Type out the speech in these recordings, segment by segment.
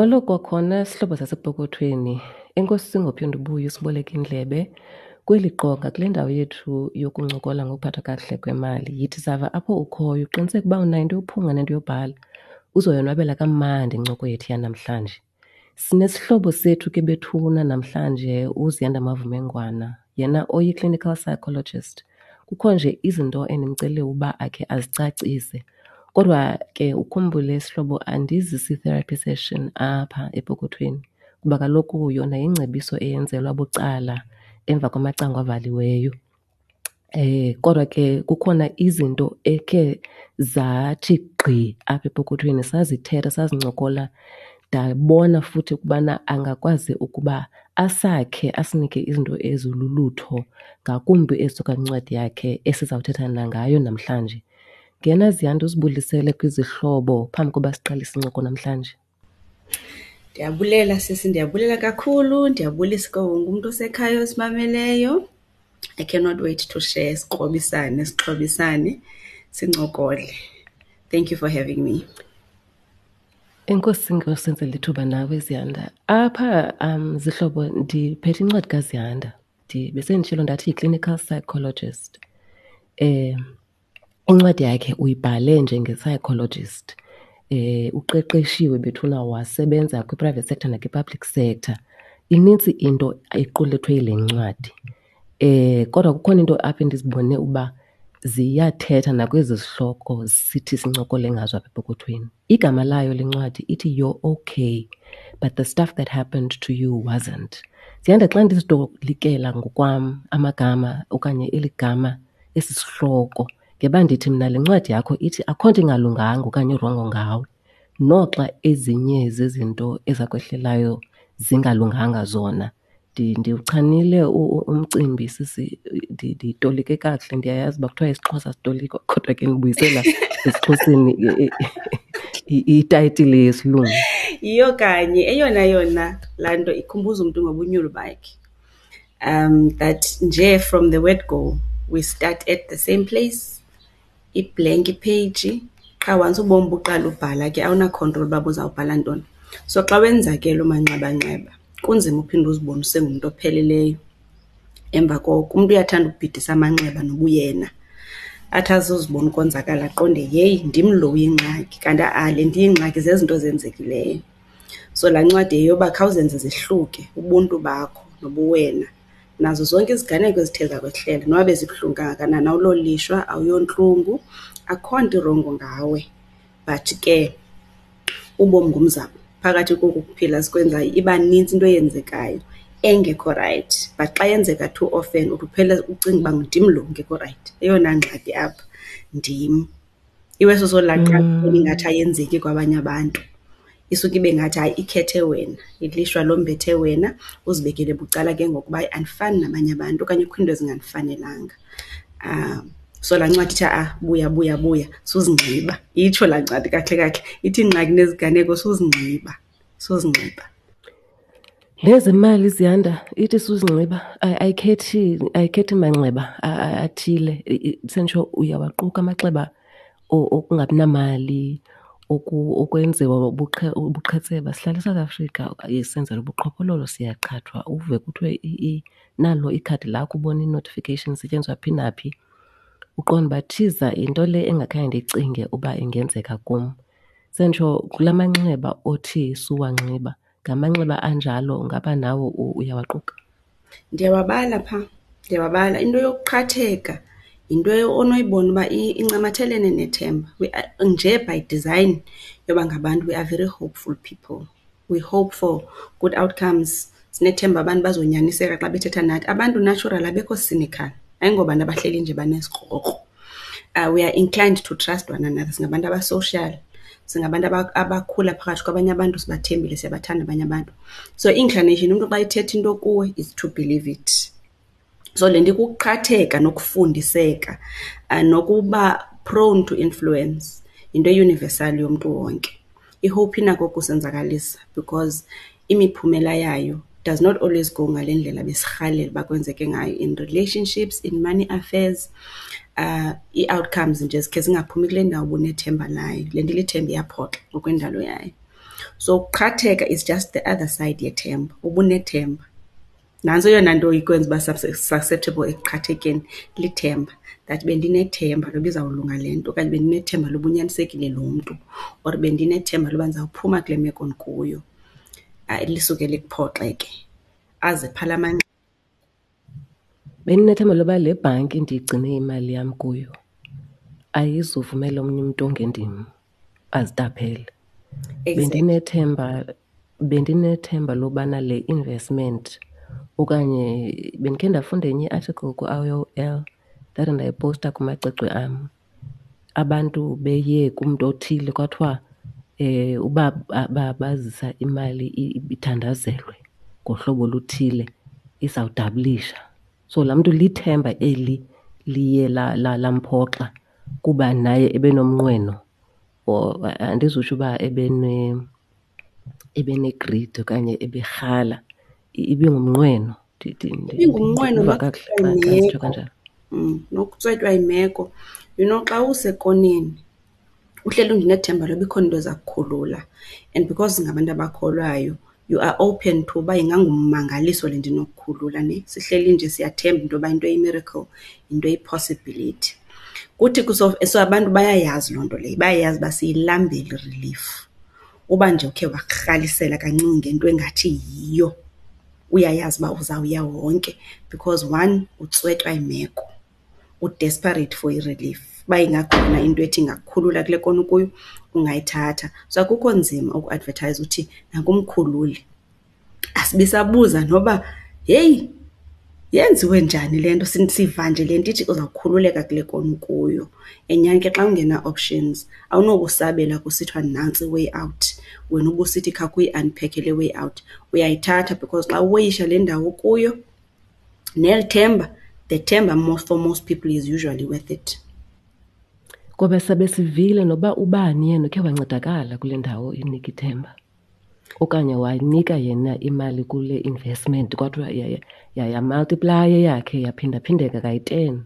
Molo kwakhona sihlobo sasepokothweni. Enkosi ngophinde ubuye usiboleke indlebe kweli qonga kule ndawo yethu yokuncokola ngokuphathwa kakuhle kwemali. Yithi sava apho ukhoyo, uqiniseke uba unayo into yophunga nento yobhala, uzoyonwabela kamandi incoko yethu yanamhlanje. Sinesihlobo sethu ke bethuna namhlanje uZiyanda Mavumengwana, yena oyi-clinical psychologist. Kukho nje izinto endimcele uba akhe azicacise. Kodwa ke ukhumbule sihlobo, andizisi therapy session apha epokothweni kuba kaloku yona yingcebiso eyenzelwa bucala emva kwamacango avaliweyo. Kodwa ke kukhona izinto ekhe zathi gqi apha epokothweni, sazithetha, sazincokola, ndabona futhi ukubana angakwazi ukuba asakhe asinike izinto ezilulutho ngakumbi ezisuka kwincwadi yakhe esizawuthetha nangayo namhlanje. Ngena Ziyanda uzibulisele kwizihlobo phambi koba siqalise incoko namhlanje. Ndiyabulela sisi, ndiyabulela kakhulu. Ndiyabulisa kuwo wonke umntu osekhaya osimameleyo. I cannot wait to share, sikrobisane, sixhobisane, sincokole. Thank you for having me. Enkosi ngosenzela ithuba nawe Ziyanda. Apha zihlobo ndiphethe incwadi kaZiyanda. Besenditshilo ndathi yi-clinical psychologist. Incwadi yakhe uyibhale njenge-psychologist. Uqeqeshiwe bethuna wasebenza kwi-private sector nakwi-public sector. Inintsi into equlethwe yile ncwadi. Kodwa kukhona into apha endizibone uba ziyathetha nakwezi zihloko sithi sincokole ngazo apha epokothweni. Igama layo le ncwadi ithi You're Okay, but the stuff that happened to you wasn't. Ziyanda, xa ndizitolikela ngokwam amagama okanye eli gama, esi sihloko, ngeba ndithi mna le ncwadi yakho ithi akho nto ingalunganga okanye irongo ngawe, noxa ezinye zezinto ezakwehlelayo zingalunganga zona. Ndiwuchanile umcimbi sisi, nditolike kakuhle. Ndiyayazi uba kuthiwa isiXhosa sitolikwa, kodwa ke ndibuyisela esiXhoseni itayitile yesilungu. Yiyo kanye eyona yona laa nto ikhumbuza umntu ngobunyulu bakhe. That nje from the word go, we start at the same place, i-blank page. Qha once ubomi buqala ubhala ke awuna-control uba buzawubhala ntoni. So xa wenza ke loo manxebanxeba, kunzima uphinde uzibone usengumntu opheleleyo. Emva koko umntu uyathanda ukubhidisa amanxeba nobuyena. Athi azozibona ukonzakala aqonde, yeyi, ndim lo uyingxaki, kanti ha-a le nto iyingxaki zezinto zenzekileyo. So laa ncwadi yeyoba khawuzenze zehluke ubuntu bakho nobuwena nazo zonke iziganeko ezithe zakwehlela noba bezibuhlungu kangakanani, awulolishwa, awuyontlungu, akho nto irongo ngawe. But ke ubomi ngumzamo. Phakathi koku kuphila sikwenzayo iba nintsi into eyenzekayo engekho rayithi. But xa yenzeka too often uthi uphele ucinga uba ndim lo ungekho rayithi. Eyona ngxaki apha ndim. Iweso solaqala ingathi ayenzeki kwabanye abantu. Isuke ibe ngathi hayi ikhethe wena, ilishwa lombethe wena, uzibekele bucala ke ngoku uba andifani nabanye abantu okanye kukho iinto ezingandifanelanga. So laa ncwadi ithi ha-a buya, buya, buya, suzingxiba. Itsho laa ncwadi kakuhle kakuhle, ithi iingxaki neziganeko suzingxiba, suzingxiba. Nezemali Ziyanda, ithi suzingxiba, ayikhethi manxeba athile. Senditsho uyawaquka amaxeba okungabi namali, okwenziwa ubuqhetseba. Sihlala eSouth Africa, senzela ubuqhophololo, siyaqhathwa. Uve kuthiwe nalo ikhadi lakho, ubone i-notification isetyenziswa phi naphi. Uqonde uba thiza yinto le engakhange ndiyicinge uba ingenzeka kum. Senditsho kula manxeba othi suwanxiba, ngamanxeba anjalo ngaba nawe uyawaquka? Ndiyawabala phaa, ndiyawabala. Into yokuqhatheka yinto onoyibona uba incamathelene nethemba. We are, nje by design yoba ngabantu, we are very hopeful people. We hope for good outcomes. Sinethemba abantu bazonyaniseka xa bethetha nathi. Abantu natural abekho cynical, ayingobantu abahleli nje banesikrokro. We are inclined to trust one another. Singabantu aba-social, singabantu abakhula phakathi kwabanye abantu, sibathembile, siyabathanda abanye abantu. So inclination, umntu xa ethetha into kuwe is to believe it. So le nto ikuqhatheka nokufundiseka, nokuba prone to influence yinto e-universal yomntu wonke. I-hope inako ukusenzakalisa because imiphumela yayo does not always go ngale ndlela besirhalela uba kwenzeke ngayo in relationships, in money affairs. Ii-outcomes nje zikhe zingaphumi kule ndawo ubunethemba layo. Le nto ilithemba iyaphoxa ngokwendalo yayo. So ukuqhatheka is just the other side yethemba, ubunethemba. Nantso eyona nto ikwenza uba susceptible ekuqhathekeni, lithemba. That bendinethemba loba izawulunga le nto okanye bendinethemba loba unyanisekile lo mntu or bendinethemba loba ndizawuphuma kule meko ndikuyo. Lisuke likuphoxe ke, aze phaa la manxeba. Bendinethemba loba le bhanki ndigcine imali yam kuyo ayizuvumela omnye umntu ongendim azitaphele. Bendinethemba, bendinethemba lobana le investment okanye bendikhe ndafunda enye i-article ku-I_O_L ndathi ndayiposta kumacwecwe am. Abantu beye kumntu othile kwathiwa uba bazisa imali ithandazelwe ngohlobo oluthile izawudabulisha. So laa mntu lithemba eli liye lamphoxa kuba naye ebenomnqweno or andizutsho uba ebene-greed okanye eberhala, ibingumnqweno. Ibingumnqweno Ndiva kakuhle xa nditsho kanjalo. Nokutswetywa yimeko. You know, xa usekoneni uhleli nje unethemba loba ikhona into eza kukhulula and because singabantu abakholwayo you are open to uba ingangummangaliso le nto inokukhulula ne. Sihleli nje siyathemba into yoba into eyi-miracle yinto eyi-possibility. Kuthi so abantu bayayazi loo nto leyo, bayayazi uba siyilambele i-relief. Uba nje ukhe wakurhalisela kancinci ngento engathi yiyo, uyayazi uba uzawuya wonke because one, utswetywa yimeko, u-desperate for i-relief. Uba ingakhona into ethi ingakukhulula kule kona ukuyo, ungayithatha. So akukho nzima ukuadvethayiza uthi nanku umkhululi. Asibi sabuza noba heyi yenziwe njani le nto, siva nje le nto ithi uzawukhululeka kule kona ukuyo. And nyhani ke xa ungena-options awunokusabela kusithiwa nantsi i-way out, wena ubusithi khawukhe uyi-unpack-e le way out. Uyayithatha because xa uweyisha le ndawo ukuyo neli themba, the themba most, for most people is usually worth it. Ngoba sabe sivile noba ubani yena ukhe wancedakala kule ndawo inika ithemba okanye wanika yena imali kule investment kwathiwa yamultiplaya eyakhe yaphindaphindeka kayi-10.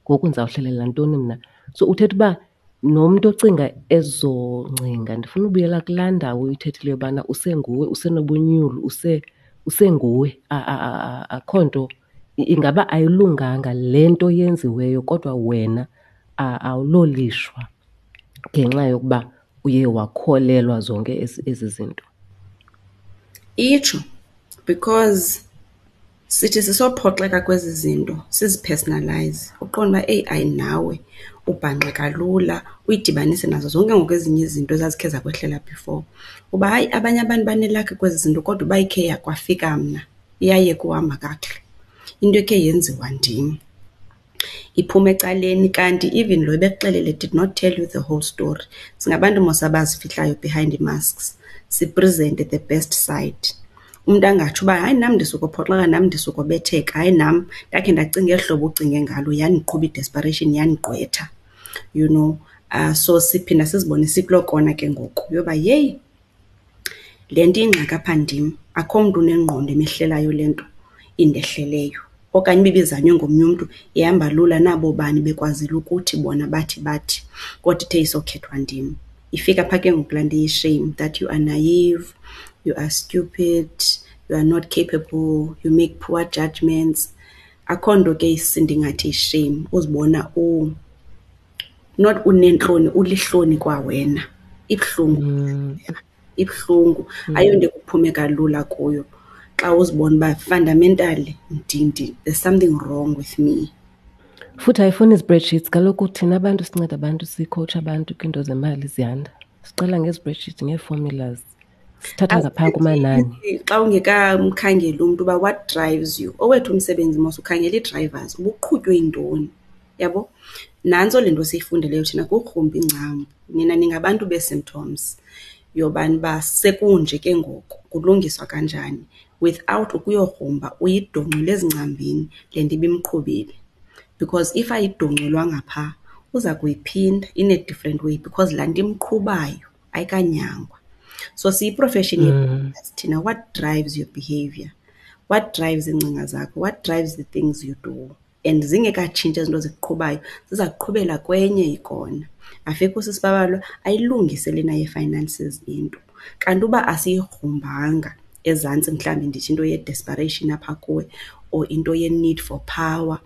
Ngoku ndizawuhlelela ntoni mna? So uthetha uba nomntu ocinga ezo ngcinga, ndifuna ubuyela kulaa ndawo uyithethileyo yobana usenguwe, usenobunyulu, usenguwe. Akho nto, ingaba ayilunganga le nto yenziweyo kodwa wena awulolishwa ngenxa yokuba uye wakholelwa zonke ezi zinto. Itsho, because sithi sisophoxeka kwezi zinto sizipersonalize, uqonde uba eyi hayi nawe ubhanxeka lula, uyidibanise nazo zonke ngoku ezinye izinto ezazikhe zakwehlela before. Uba hayi abanye abantu banelakhi kwezi zinto kodwa uba ikhe kwafika mna iyayeka uhamba kakuhle, into ekhe yenziwa ndim iphuma ecaleni. Kanti even lo ebekuxelele did not tell you the whole story. Singabantu mos abazifihlayo behind ii-masks, siprezente the best side. Umntu angatsho uba hayi nam ndisukophoxeka, nam ndisukobetheka, hayi nam ndakhe ndacinga eli hlobo ucinge ngalo, yandiqhuba i-desperation yandigqwetha, you know. So siphinda sizibone sikuloo kona ke ngoku yoba yeyi le nto iyingxaki apha ndim, akho mntu unengqondo emehlelayo le nto indehleleyo. Okanye uba ibizanywe ngomnye umntu ihamba lula nabo bani bekwazile ukuthi bona bathi bathi, kodwa ithe isokhethwa ndim. Ifika phaa ke ngoku laa nto iyi-shame that you are naive, you are stupid, you are not capable, you make poor judgments. Akho nto ke ndingathi yi-shame, uzibona not uneentloni, ulihloni kwawena. Ibuhlungu, ibuhlungu. Ayonto ekuphumeka lula kuyo xa uzibona uba fundamentally there's something wrong with me. Futhi ayifuni ii-spreadsheets kaloku thina abantu sinceda abantu, sikhowutsha abantu kwiinto zemali ziyanda. Siqala ngee-spreadsheets, ngee-formulas, sithatha ngaphaa kumanani. Xa ungekamkhangeli umntu uba what drives you, owethu umsebenzi mos ukhangela ii-drivers, uba uqhutywe yintoni, yabo? Nantso le nto siyifundeleyo thina kukugrumba iingcambu. Nina ningabantu bee-symptoms yobani uba sekunje ke ngoku, kulungiswa kanjani without ukuyogrumba uyidongcule ezingcambini le nto ibimqhubile. Because if ayidongculwanga phaa, uza kuyiphinda in a different way because laa nto imqhubayo ayikanyangwa. So siyi-profession thina, what drives your behavior? What drives iingcinga zakho? What drives the things you do? And zingekatshintshi ezi zinto zikuqhubayo, ziza kuqhubela kwenye ikona. Afike usisi Babalwa ayilungise lena ye-finances into. Kanti uba asiyigrumbanga ezantsi, mhlawumbi ndithi into ye-desperation apha kuwe or into ye-need for power,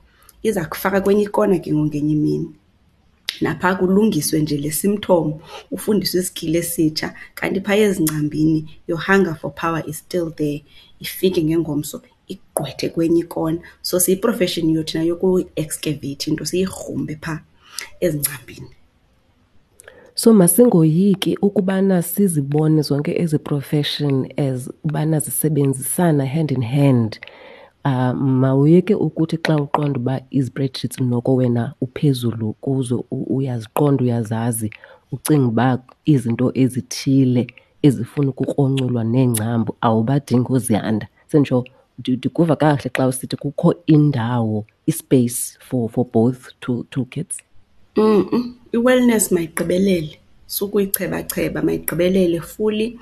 iza kufaka kwenye ikona ke ngoku ngenye imini. Naphaa kulungiswe nje le symptom, ufundiswe iskili esitsha, kanti phaya ezingcambini your hunger for power is still there. Ifike ngengomso ikugqwethe kwenye ikona. So siyiprofeshini yethu thina yokuyi-excavate into, siyigrumbe phaa ezingcambini. So masingoyiki ukubana sizibone zonke ezi profession as ubana zisebenzisana hand in hand. Mawuyeke ukuthi xa uqonda uba izi-spreadsheets noko wena uphezulu kuzo, uyaziqonda, uyazazi, ucinga uba izinto ezithile ezifuna ukukronculwa neengcambu awubadingi ooZiyanda. Senditsho ndikuva kakuhle xa usithi kukho indawo, i-space for both toolkits. I-wellness mayigqibelele, sukuyichebacheba, mayigqibelele fully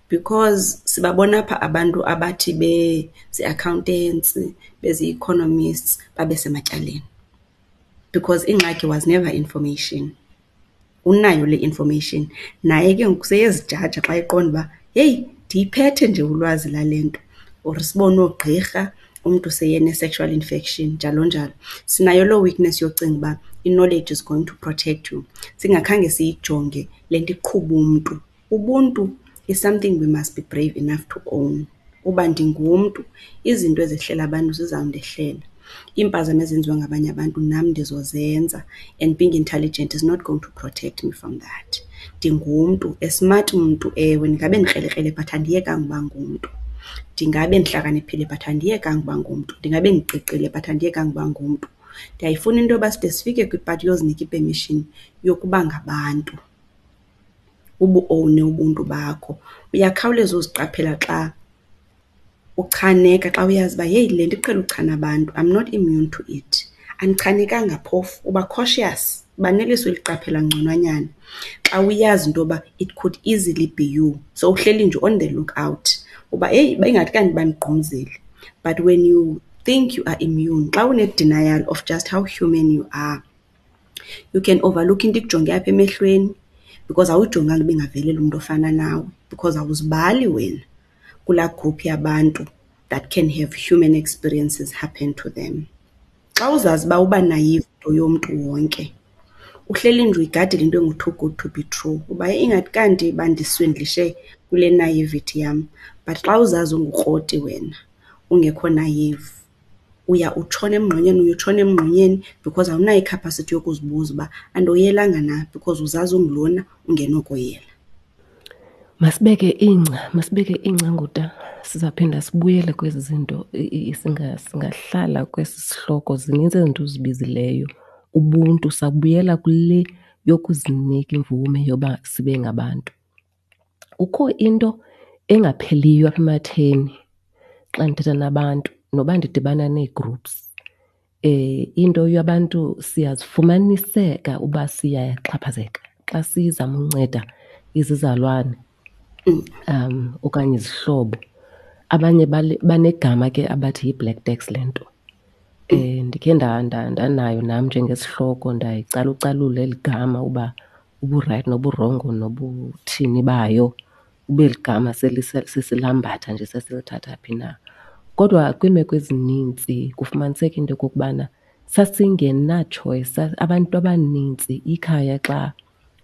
because sibabona apha abantu abathi bezi-accountants, bezi-economists babe sematyaleni because ingxaki was never information. Unayo le information, naye ke ngoku seyezijaja xa eqonda uba heyi ndiyiphethe nje ulwazi lale nto. Or sibone oogqirha umntu seyene-sexual infection, njalo njalo. Sinayo loo weakness yocinga uba i-knowledge is going to protect you, singakhange siyijonge le nto iqhuba umntu. Ubuntu is something we must be brave enough to own. Uba ndingumntu, izinto ezehlela abantu zizawundehlela. Iimpazamo ezenziwa ngabanye abantu nam ndizozenza, and being intelligent is not going to protect me from that. Ndingumntu, a smart mntu, ewe, ndingabe ndikrelekrele but andiyekanga uba ngumntu. Ndingabe ndihlakaniphile but andiyekanga uba ngumntu. Ndingabe ndiqiqile but andiyekanga uba ngumntu. Ndiyayifuna into yoba side sifike kwipati yozinika i-permission yokuba ngabantu, ubuowune ubuntu bakho. Uyakhawuleza uziqaphela xa uchaneka, xa uyazi uba heyi le nto iqhele uchana abantu, I'm not immune to it. Andichanekanga phofu, uba cautious, uba neliso eliqaphela ngconwanyana xa uyazi into yoba it could easily be you. So uhleli nje on the look out uba heyi ingathi kanti bandigqumzile. But when you think you are immune, xa une-denial of just how human you are, you can overlook into ikujonge apha emehlweni because awuyijonganga uba ingavelela umntu ofana nawe because awuzibali wena kulaa group yabantu that can have human experiences happen to them. Xa uzazi uba uba naive into yomntu wonke, uhleli nje uyigadile into engu-too good to be true, uba ingathi kanti bandiswindlishe kule naivety yam. But xa uzazi ungukroti wena, ungekho naive, uya utshona emngxunyeni, uye utshona emngxunyeni because awunayo i-capacity yokuzibuza uba andoyelanga na because uzazi ungulona ungenokoyela. Masibeke ingca, masibeke ingca nguta. Sizawuphinda sibuyele kwezi zinto, singahlala kwesi sihloko. Zininzi izinto ozibizileyo. Ubuntu, sabuyela kule yokuzinika imvume yoba sibe ngabantu. Kukho into engapheliyo apha ematheni xa ndithetha nabantu, noba ndidibana nee-groups. Into yabantu siyazifumaniseka uba siyaxhaphazeka xa sizama unceda izizalwane okanye izihlobo. Abanye banegama ke abathi yi-black tax le nto. Ndikhe ndanayo nam njengesihloko, ndayicalucalula eli gama uba uburayithi noburongo nobuthini bayo, ube ligama sesilambatha nje sesilithatha phi na. Kodwa kwiimeko ezinintsi kufumaniseka into yokokubana sasingenatshoyisi. Abantu abanintsi ikhaya xa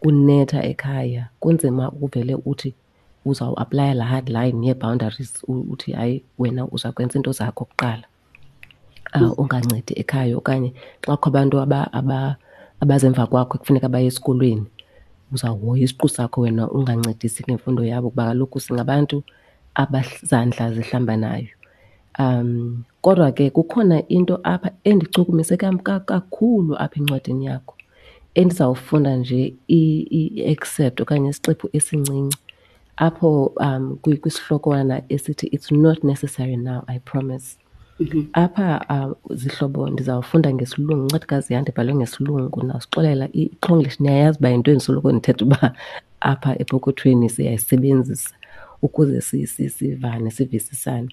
kunetha ekhaya kunzima uvele uthi uzawuaplaya laa hard line yee-boundaries, uthi hayi wena uza kwenza iinto zakho kuqala, ungancedi ekhaya. Okanye xa kukho abantu abazemva kwakho ekufuneka baye esikolweni, uzawuhoya isiqu sakho wena ungancedisi ngemfundo yabo, kuba kaloku singabantu abazandla zihlambanayo. Kodwa ke kukhona into apha endichukumise kakhulu apha encwadini yakho endizawufunda nje i-excerpt okanye isiqephu esincinci apho kwisihlokwana esithi It's not necessary now, I promise. Apha zihlobo ndizawufunda ngesilungu, incwadikazi yam ndibhalwe ngesilungu, nawusixolela iXhonglish niyayazi uba yinto endisoloko ndithetha uba apha epokothweni siyayisebenzisa ukuze sivane, sivisisane.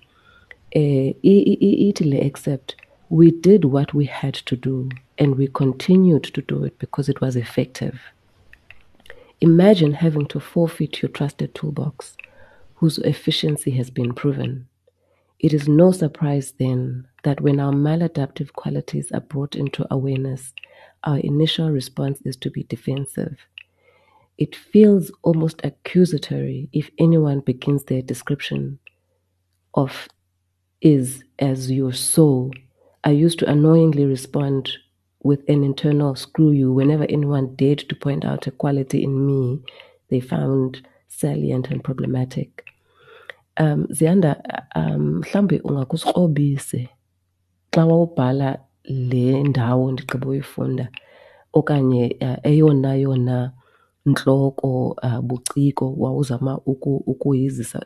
Ithi le excerpt, we did what we had to do and we continued to do it because it was effective. Imagine having to forfeit your trusted toolbox, whose efficiency has been proven. It is no surprise then that when our maladaptive qualities are brought into awareness, our initial response is to be defensive. It feels almost accusatory if anyone begins their description of is as your soul. I used to annoyingly respond with an internal screw you whenever anyone dared to point out a quality in me they found salient and problematic. Ziyanda, mhlawumbi ungakusikrobise xa wawubhala le ndawo ndigqiba uyifunda okanye eyona yona ntloko buciko wawuzama ukuyizisa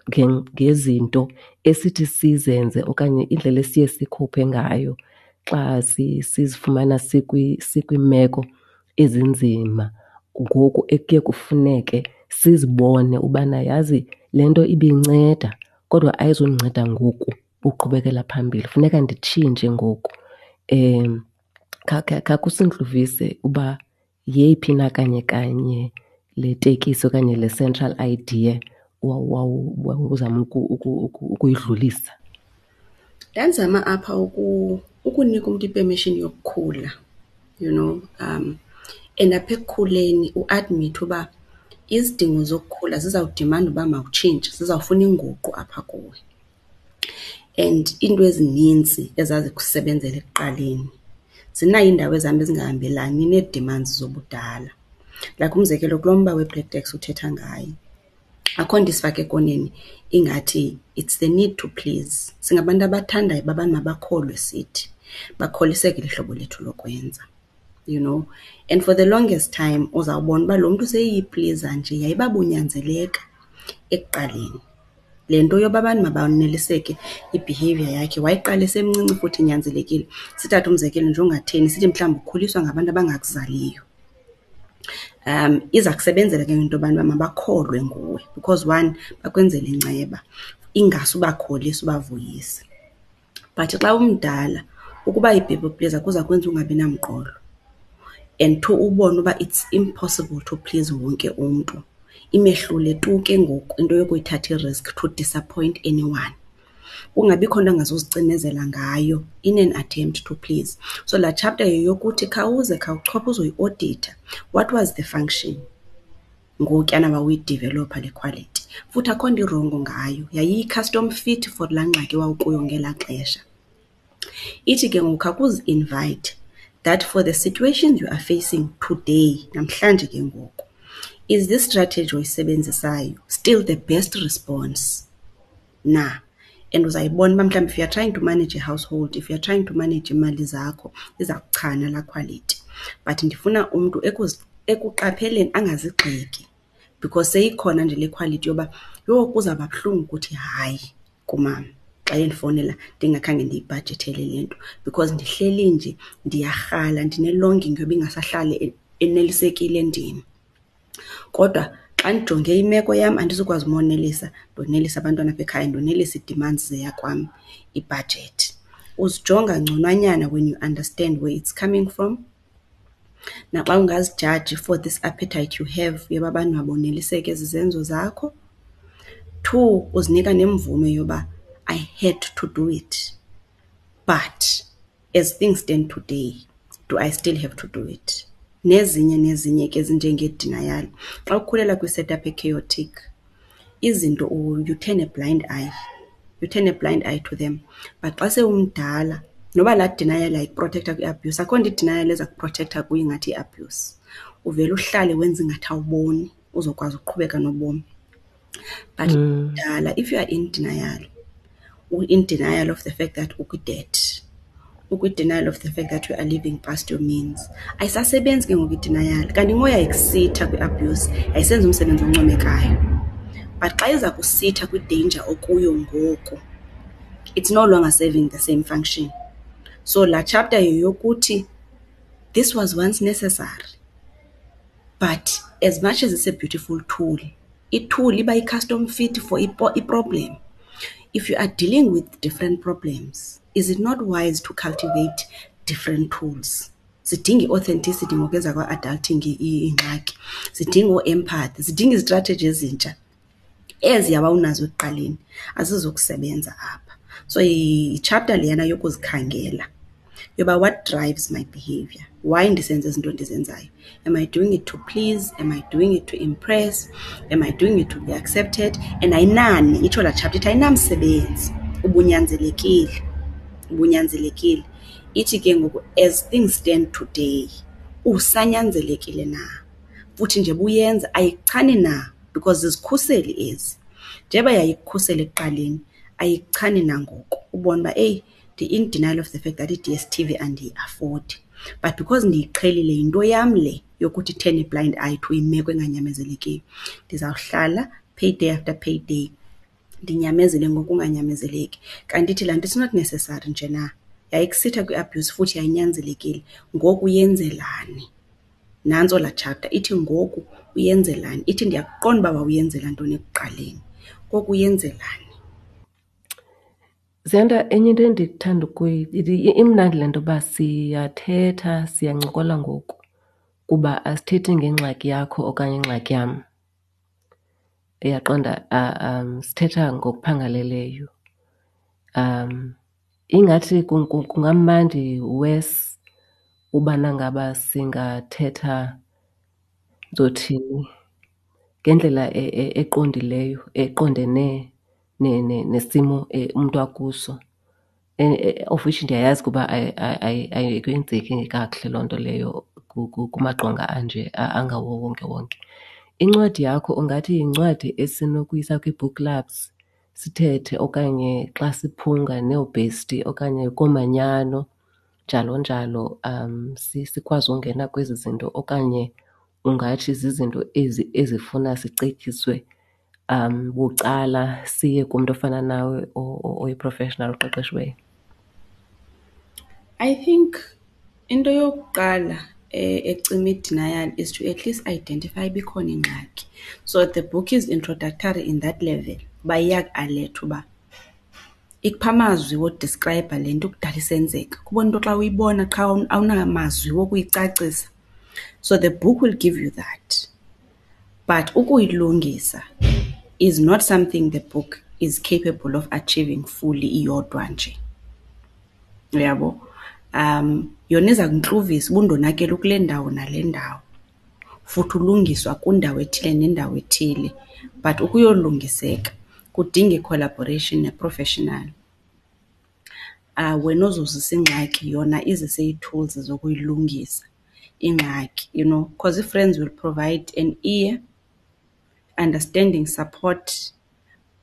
ngezinto esithi sizenze okanye indlela esiye sikhophe ngayo xa sizifumana sikwiimeko ezinzima, ngoku ekuye kufuneke sizibone ubana yazi le nto ibinceda kodwa ayizundinceda ngoku uqhubekela phambili, funeka nditshintshe ngoku. Khakusintluvise uba yeyiphi na kanye kanye le tekisi okanye le central idea wawuzama ukuyidlulisa. Ndandizama apha ukunika umntu i-permission yokukhula, and apha ekukhuleni uadmithe uba izidingo zokukhula zizawudimanda uba mawutshintshe, zizawufuna inguqu apha kuwe. And iinto ezinintsi ezazikusebenzela ekuqaleni zinayo iindawo ezihamba zingahambelani nee-demands zobudala. Like umzekelo, kulo mba we-black tax uthetha ngayo, akho nto isifaka ekoneni ingathi it's the need to please. Singabantu abathandayo uba abantu mabakholwe sithi, bakholiseke lihlobo lethu lokwenza. And for the longest time uzawubona uba lo mntu seyiyipliza nje yayiba bunyanzeleka ekuqaleni. Le nto yoba abantu mabaneliseke i-behaviour yakhe wayiqala esemncinci futhi inyanzelekile. Sithathe umzekelo nje ongatheni, sithi mhlawumbi ukhuliswa ngabantu abangakuzaliyo. Iza kusebenzela ke into yobana uba mabakholwe nguwe because one, bakwenzela inceba, ingase ubakholise ubavuyise. But xa umdala ukuba yi-people pleaser kuza kwenza ungabi namqolo and two, ubone uba it's impossible to please wonke umntu. Imehlule tu ke ngoku into yokuyithatha i-risk to disappoint anyone. Kungabikho nto angazuzicinezela ngayo in an attempt to please. So laa chapter yeyokuthi khawuze khawuchophe uzoyioditha, what was the function ngokuyana wawuyidivelopha le quality? Futhi akho nto irongo ngayo, yayiyi-custom fit for laa ngxaki wawukuyo ngelaa xesha. Ithi ke ngoku khawukuzi-invite that for the situations you are facing today, namhlanje ke ngoku, is this strategy oyisebenzisayo still the best response na? And uzayibona uba mhlawumbi if you are trying to manage a household, if you are trying to manage iimali zakho, iza kuchana laa quality. But ndifuna umntu ekuqapheleni angazigxeki because seyikhona nje le quality yoba, yho, kuzawuba buhlungu ukuthi hayi kumama xa endifowunela ndingakhange ndiyibhajethele le nto because ndihleli nje ndiyarhala, ndine-longing yoba ingasahlali enelisekile ndim. Kodwa xa ndijonge imeko yam andizukwazi umonelisa, ndonelise abantwana apha ekhaya, ndonelise ii-demands zeyakwam ibhajethi. Uzijonga ngconwanyana when you understand where it's coming from. Naxa ungazijaji for this appetite you have yoba abantu maboneliseke zizenzo zakho. Two, uzinika nemvume yoba I had to do it, but as things stand today, do I still have to do it? Nezinye nezinye ke ezinjengee-denial. Xa ukhulela kwi-setup e-chaotic, izinto you turn a blind eye, you turn a blind eye to them. But xa sewumdala, noba laa denial yayikuprotektha kwi-abuse, akho nto i-denial eza kuprotektha kuyo ingathi yi-abuse. Uvele uhlale wenze ingathi awuboni uzokwazi ukuqhubeka nobomi. But mdala, if you are in denial, in denial of the fact that ukwi-debt, ukwi-denial of the fact that you are living past your means, ayisasebenzi ke ngoku i-denial. Kanti ngoku yayikusitha kwi-abuse, yayisenza umsebenzi oncomekayo. But xa iza kusitha kwi-danger okuyo ngoku, it's no longer serving the same function. So laa chapter yeyokuthi this was once necessary, but as much as it's a beautiful tool, i-tool iba yi-custom fit for i-problem. If you are dealing with different problems, is it not wise to cultivate different tools? Zidinga i-authenticity ngoku ezakwa-adulting iingxaki, zidinga oo-empathy, zidinga izitratheji ezintsha. Eziya wawunazo ekuqaleni azizukusebenza apha. So yi-chapter leyana yokuzikhangela yoba what drives my behavior, why ndisenza ezi zinto ndizenzayo. Am I doing it to please? Am I doing it to impress? Am I doing it to be accepted? And ayinani, itsho laa chapter ithi ayinamsebenzi, ubunyanzelekile, ubunyanzelekile. Ithi ke ngoku as things stand today usanyanzelekile na? Futhi nje buyenza ayikuchani na because zizikhuseli ezi. Njeba yayikukhusela ekuqaleni ayikuchani na ngoku ubone uba eyi ndi-in denial of the fact that i-D_S_T_V andiyiafodi but because ndiyiqhelile yinto yam le yokuthi turn a blind eye to imeko enganyamezelekiyo. Ndizawuhlala payday after payday ndinyamezele ngokunganyamezeleki. Kanti ithi laa nto it's not necessary nje na, yayikusitha kwi-abuse futhi yayinyanzelekile, ngoku uyenzelani? Nantso laa chapter ithi ngoku uyenzelani. Ithi ndiyakuqonda uba wawuyenzela ntoni ekuqaleni, ngoku uyenzelani? Ziyanda, enye into endithanda imnandi le nto yoba siyathetha, siyancokola ngoku kuba asithethi ngengxaki yakho okanye ingxaki yam. Uyaqonda? Sithetha ngokuphangaleleyo. Ingathi kungamandi worse ubana ngaba singathetha, ndizothini, ngendlela eqondileyo, eqondene nesimo umntu akuso. Of which ndiyayazi ukuba ayikwenzeki kakuhle loo nto leyo kumaqonga anje angawowonkewonke. Incwadi yakho ungathi yincwadi esinokuyisa kwii-book clubs sithethe okanye xa siphunga neebhesti okanye koomanyano njalo njalo, sikwazi ungena kwezi zinto, okanye ungathi zizinto ezi ezifuna sicetyiswe bucala siye kumntu ofana nawe oyi-professional oqeqeshiweyo? I think into yokuqala ecima i-denial is to at least identify uba ikhona ingxaki. So the book is introductory in that level uba iyakualetha uba ikupha amazwi wodiskrayibha le nto kudala isenzeka. Kubona into xa uyibona qha awunamazwi wokuyicacisa. So the book will give you that. But ukuyilungisa is not something the book is capable of achieving fully iyodwa nje. Uyabo? Yona iza kuntluvisa uba undonakele kule ndawo nale ndawo, futhi ulungiswa kwindawo ethile nendawo ethile. But ukuyolungiseka kudinga i-collaboration ne-professional. Wena ozozisa ingxaki yona izise ii-tools zokuyilungisa ingxaki, you know, because ii-friends will provide an ear, understanding, support,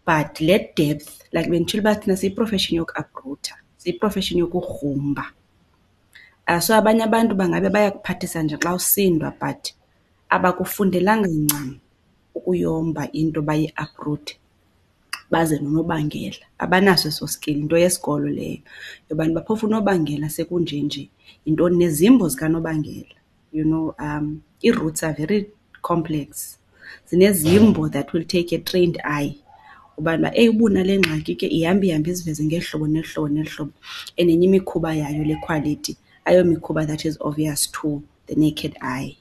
but le depth, like benditshilo uba thina siyi-profession yokuaprutha, siyi-profession yokugrumba. So abanye abantu bangabe bayakuphathisa nje xa usindwa but abakufundelanga ncam ukuyomba into bayiapruthe baze nonobangela. Abanaso eso skill, yinto yesikolo leyo yobana uba phofu unobangela sekunjenje yintoni, nezimbo zikanobangela. You know, ii-roots are very complex. Zinezimbo that will take a trained eye ubana eyi uba unale ngxaki ke ihamba ihambe iziveze ngeli hlobo neli hlobo neli hlobo. And enye imikhuba yayo le quality ayomikhuba that is obvious to the naked eye.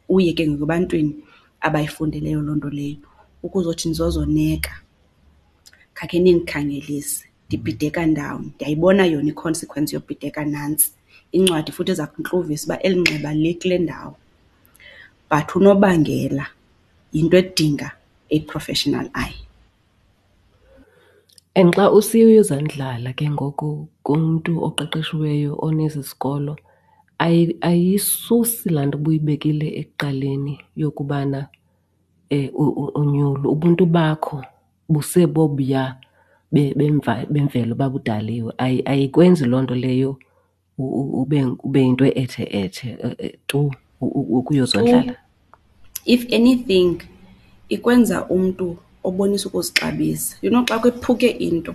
Uye ke ngoku ebantwini abayifundeleyo loo nto leyo ukuzothi nizozoneka, khakhe nindikhangelise, ndibhideka ndawoni. Ndiyayibona yona i-consequence yobhideka nantsi. Incwadi futhi iza kuntluvisa uba eli nxeba likule ndawo. But unobangela yinto edinga a professional eye. And xa usiya uyozandlala ke ngoku kumntu oqeqeshiweyo onesi sikolo, ayisusi laa nto ubuyibekile ekuqaleni yokubana unyulu, ubuntu bakho busebobuya bemvelo babudaliwe. Ayikwenzi loo nto leyo ube yinto ethe-ethe tu ukuyozondlala. If anything, ikwenza umntu obonisa ukuzixabisa. You know, xa kwephuke into,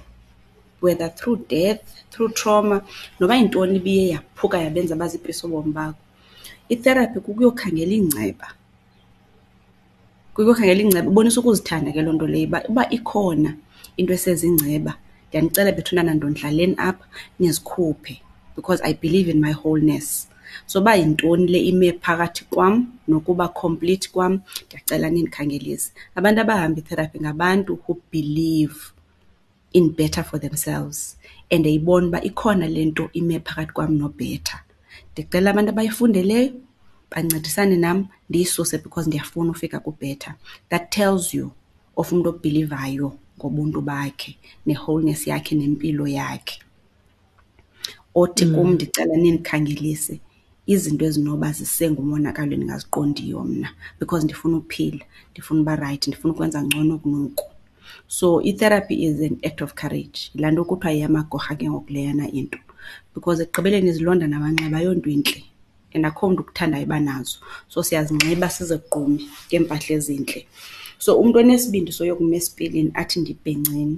whether through death, through trauma, noba yintoni ibiye yaphuka yabenza bazipisa ubomi bakho, itherapy kukuyokhangela iingceba. Kukuyokhangela iingceba, ibonisa ukuzithanda ke loo nto leyo uba, uba ikhona into esezingceba, ndiyanicela bethunana ndondlaleni apha nizikhuphe because I believe in my wholeness. So uba yintoni le ime phakathi kwam nokuba complete kwam, ndiyacela nindikhangelise. Abantu abahamba i-therapy ngabantu who believe in better for themselves and eyibona uba ikhona le nto ime phakathi kwam no-better. Ndicela abantu abayifundeleyo bancedisane nam ndiyisuse because ndiyafuna ufika ku-better. That tells you of umntu obhilivayo ngobuntu bakhe ne-wholeness yakhe nempilo yakhe. Othi kum ndicela nindikhangelise izinto ezinoba zisengumonakalo endingaziqondiyo mna because ndifuna uphila, ndifuna uba rayithi, ndifuna ukwenza ngcono kunoku. So i-therapy is an act of courage. Yilaa nto kuthiwa yeyamagorha ke ngoku leyana into because ekugqibeleni izilonda namanxeba ayonto intle and akho mntu ukuthandayo uba nazo. So siyazinxiba sizigqume ngeempahla ezintle. So umntu onesibindi soyokuma esipilini athi ndibhenceni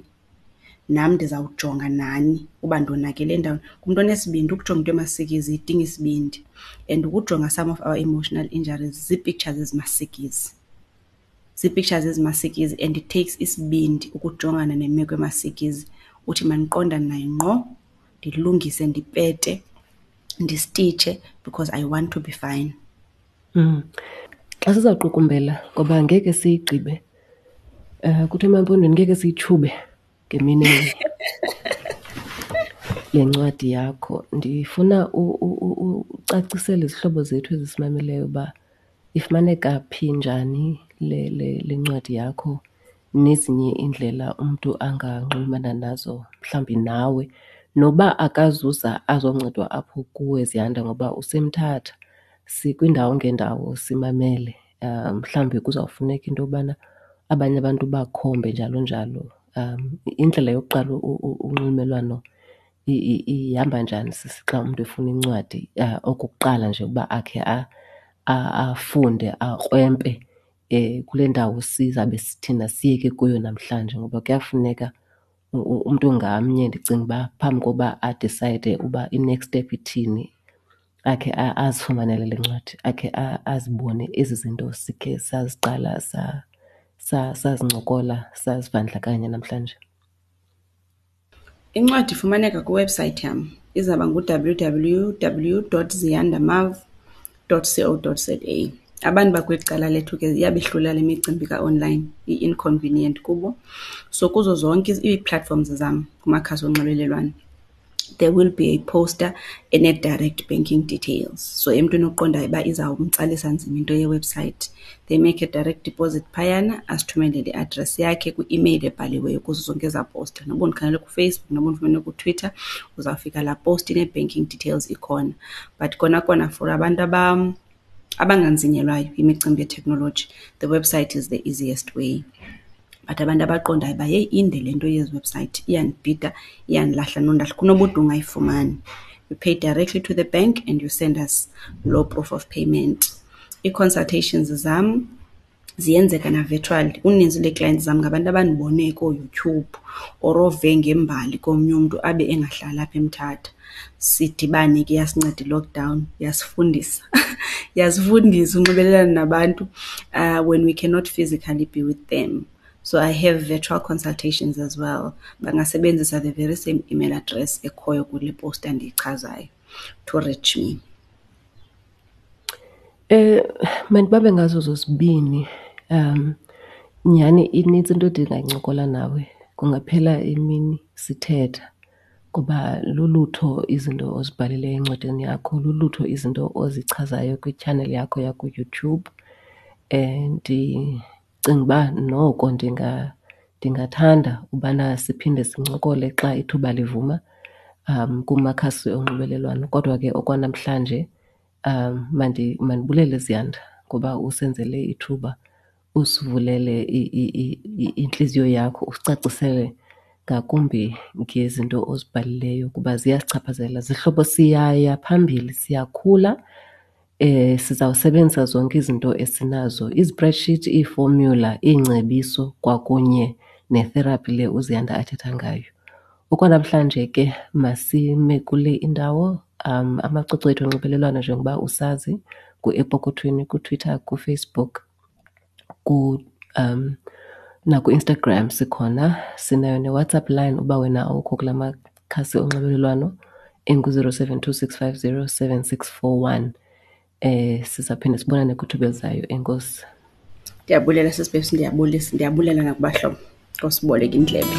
nam ndizawujonga nani uba ndonakele ndawoni, ngumntu onesibindi. Ukujonga into emasikizi idinga isibindi and ukujonga some of our emotional injuries zii-pictures ezimasikizi. Zii-pictures ezimasikizi and it takes isibindi ukujongana nemeko emasikizi uthi mandiqondane nayo ngqo, ndilungise, ndipete, ndistitshe because I want to be fine. Xa sizawuqukumbela ngoba ngeke siyigqibe, kuthiwa emaMpondweni ngeke siyitshube ngemini enye le ncwadi yakho. Ndifuna ucacisele izihlobo zethu ezisimameleyo uba ifumaneka phi, njani le ncwadi yakho nezinye iindlela umntu anganxulumana nazo mhlawumbi nawe noba akazuza azoncedwa apho kuwe Ziyanda ngoba useMthatha. Sikwiindawo ngeendawo simamele. Mhlawumbi kuzawufuneka into yobana abanye abantu bakhombe njalo njalo. Indlela yokuqala unxulumelwano ihamba njani sisi xa umntu efuna incwadi okokuqala nje ukuba akhe afunde akrwempe kule ndawo sizabe thina siyeke kuyo namhlanje? Ngoba kuyafuneka umntu ngamnye ndicinga uba phambi koba adisayide uba i-next step ithini akhe azifumanele le ncwadi, akhe azibone ezi zinto sikhe saziqala sazincokola sazivandlakanya namhlanje. Incwadi ifumaneka kwiwebhusayithi yam, izawuba ngu-W_W_W dot ziyandamav dot co dot za. Abantu bakweli cala lethu ke iyabehlula le micimbi ka-online, i-inconvenient kubo. So kuzo zonke ii-platforms zam kumakhasi onxibelelwano there will be a poster ene-direct banking details. So emntwini oqondayo uba izawumtsalisa nzima into yewebhusayithi, they make a direct deposit phayana, asithumelele i-address yakhe kwi-imeyile ebhaliweyo kuzo zonke ezaa poster. Noba undikhangele kuFacebook, noba undifumene kuTwitter, uzawufika laa post inee-banking details ikhona. But kona kona for abantu abanganzinyelwayo yimicimbi yeteknoloji, the website is the easiest way. But abantu abaqondayo uba heyi inde le nto yezi website, iyandibhida, iyandilahla nondahla, kunobude ungayifumani. You pay directly to the bank and you send us loo proof of payment. Ii-consultations zam ziyenzeka na-virtually. Uninzi lwee-clients zam ngabantu abandibone kooYouTube or ove ngembali komnye umntu abe engahlali apha eMthatha. Sidibane ke, yasinceda i-lockdown yasifundisa, yasifundisa unxibelelana nabantu when we cannot physically be with them. So I have virtual consultations as well. Bangasebenzisa the very same email address ekhoyo kule posta ndiyichazayo to reach me. Mandibambe ngazo zozibini. Nyhani inintsi into endingayincokola nawe, kungaphela imini sithetha ngoba lulutho izinto ozibhalileyo encwadini yakho, lulutho izinto ozichazayo kwitshaneli yakho yakuYouTube. Ndicinga uba noko ndingathanda ubana siphinde sincokole xa ithuba livuma kumakhasi onxibelelwano. Kodwa ke okwanamhlanje mandibulele Ziyanda ngoba usenzele ithuba, usivulele intliziyo yakho, usicacisele ngakumbi ngezinto ozibhalileyo kuba ziyasichaphazela. Zihlobo, siyaya phambili, siyakhula. Sizawusebenzisa zonke izinto esinazo, izi-spreadsheet, iifomyula, iingcebiso kwakunye ne-therapy le uZiyanda athetha ngayo. Okwanamhlanje ke masime kule indawo. Amacwecwe ethu onxibelelwano njengoba usazi nguEpokothweni kuTwitter, kuFacebook, nakuInstagram sikhona. Sinayo neWhatsApp line uba wena awukho kula makhasi onxibelelwano, engu-072 650 7641. Sizawuphinda sibonane kwithuba elizayo. Enkosi. Ndiyabulela sisi Babes, ndiyabulisa, ndiyabulela nakubahlobo ngosiboleka indlebe.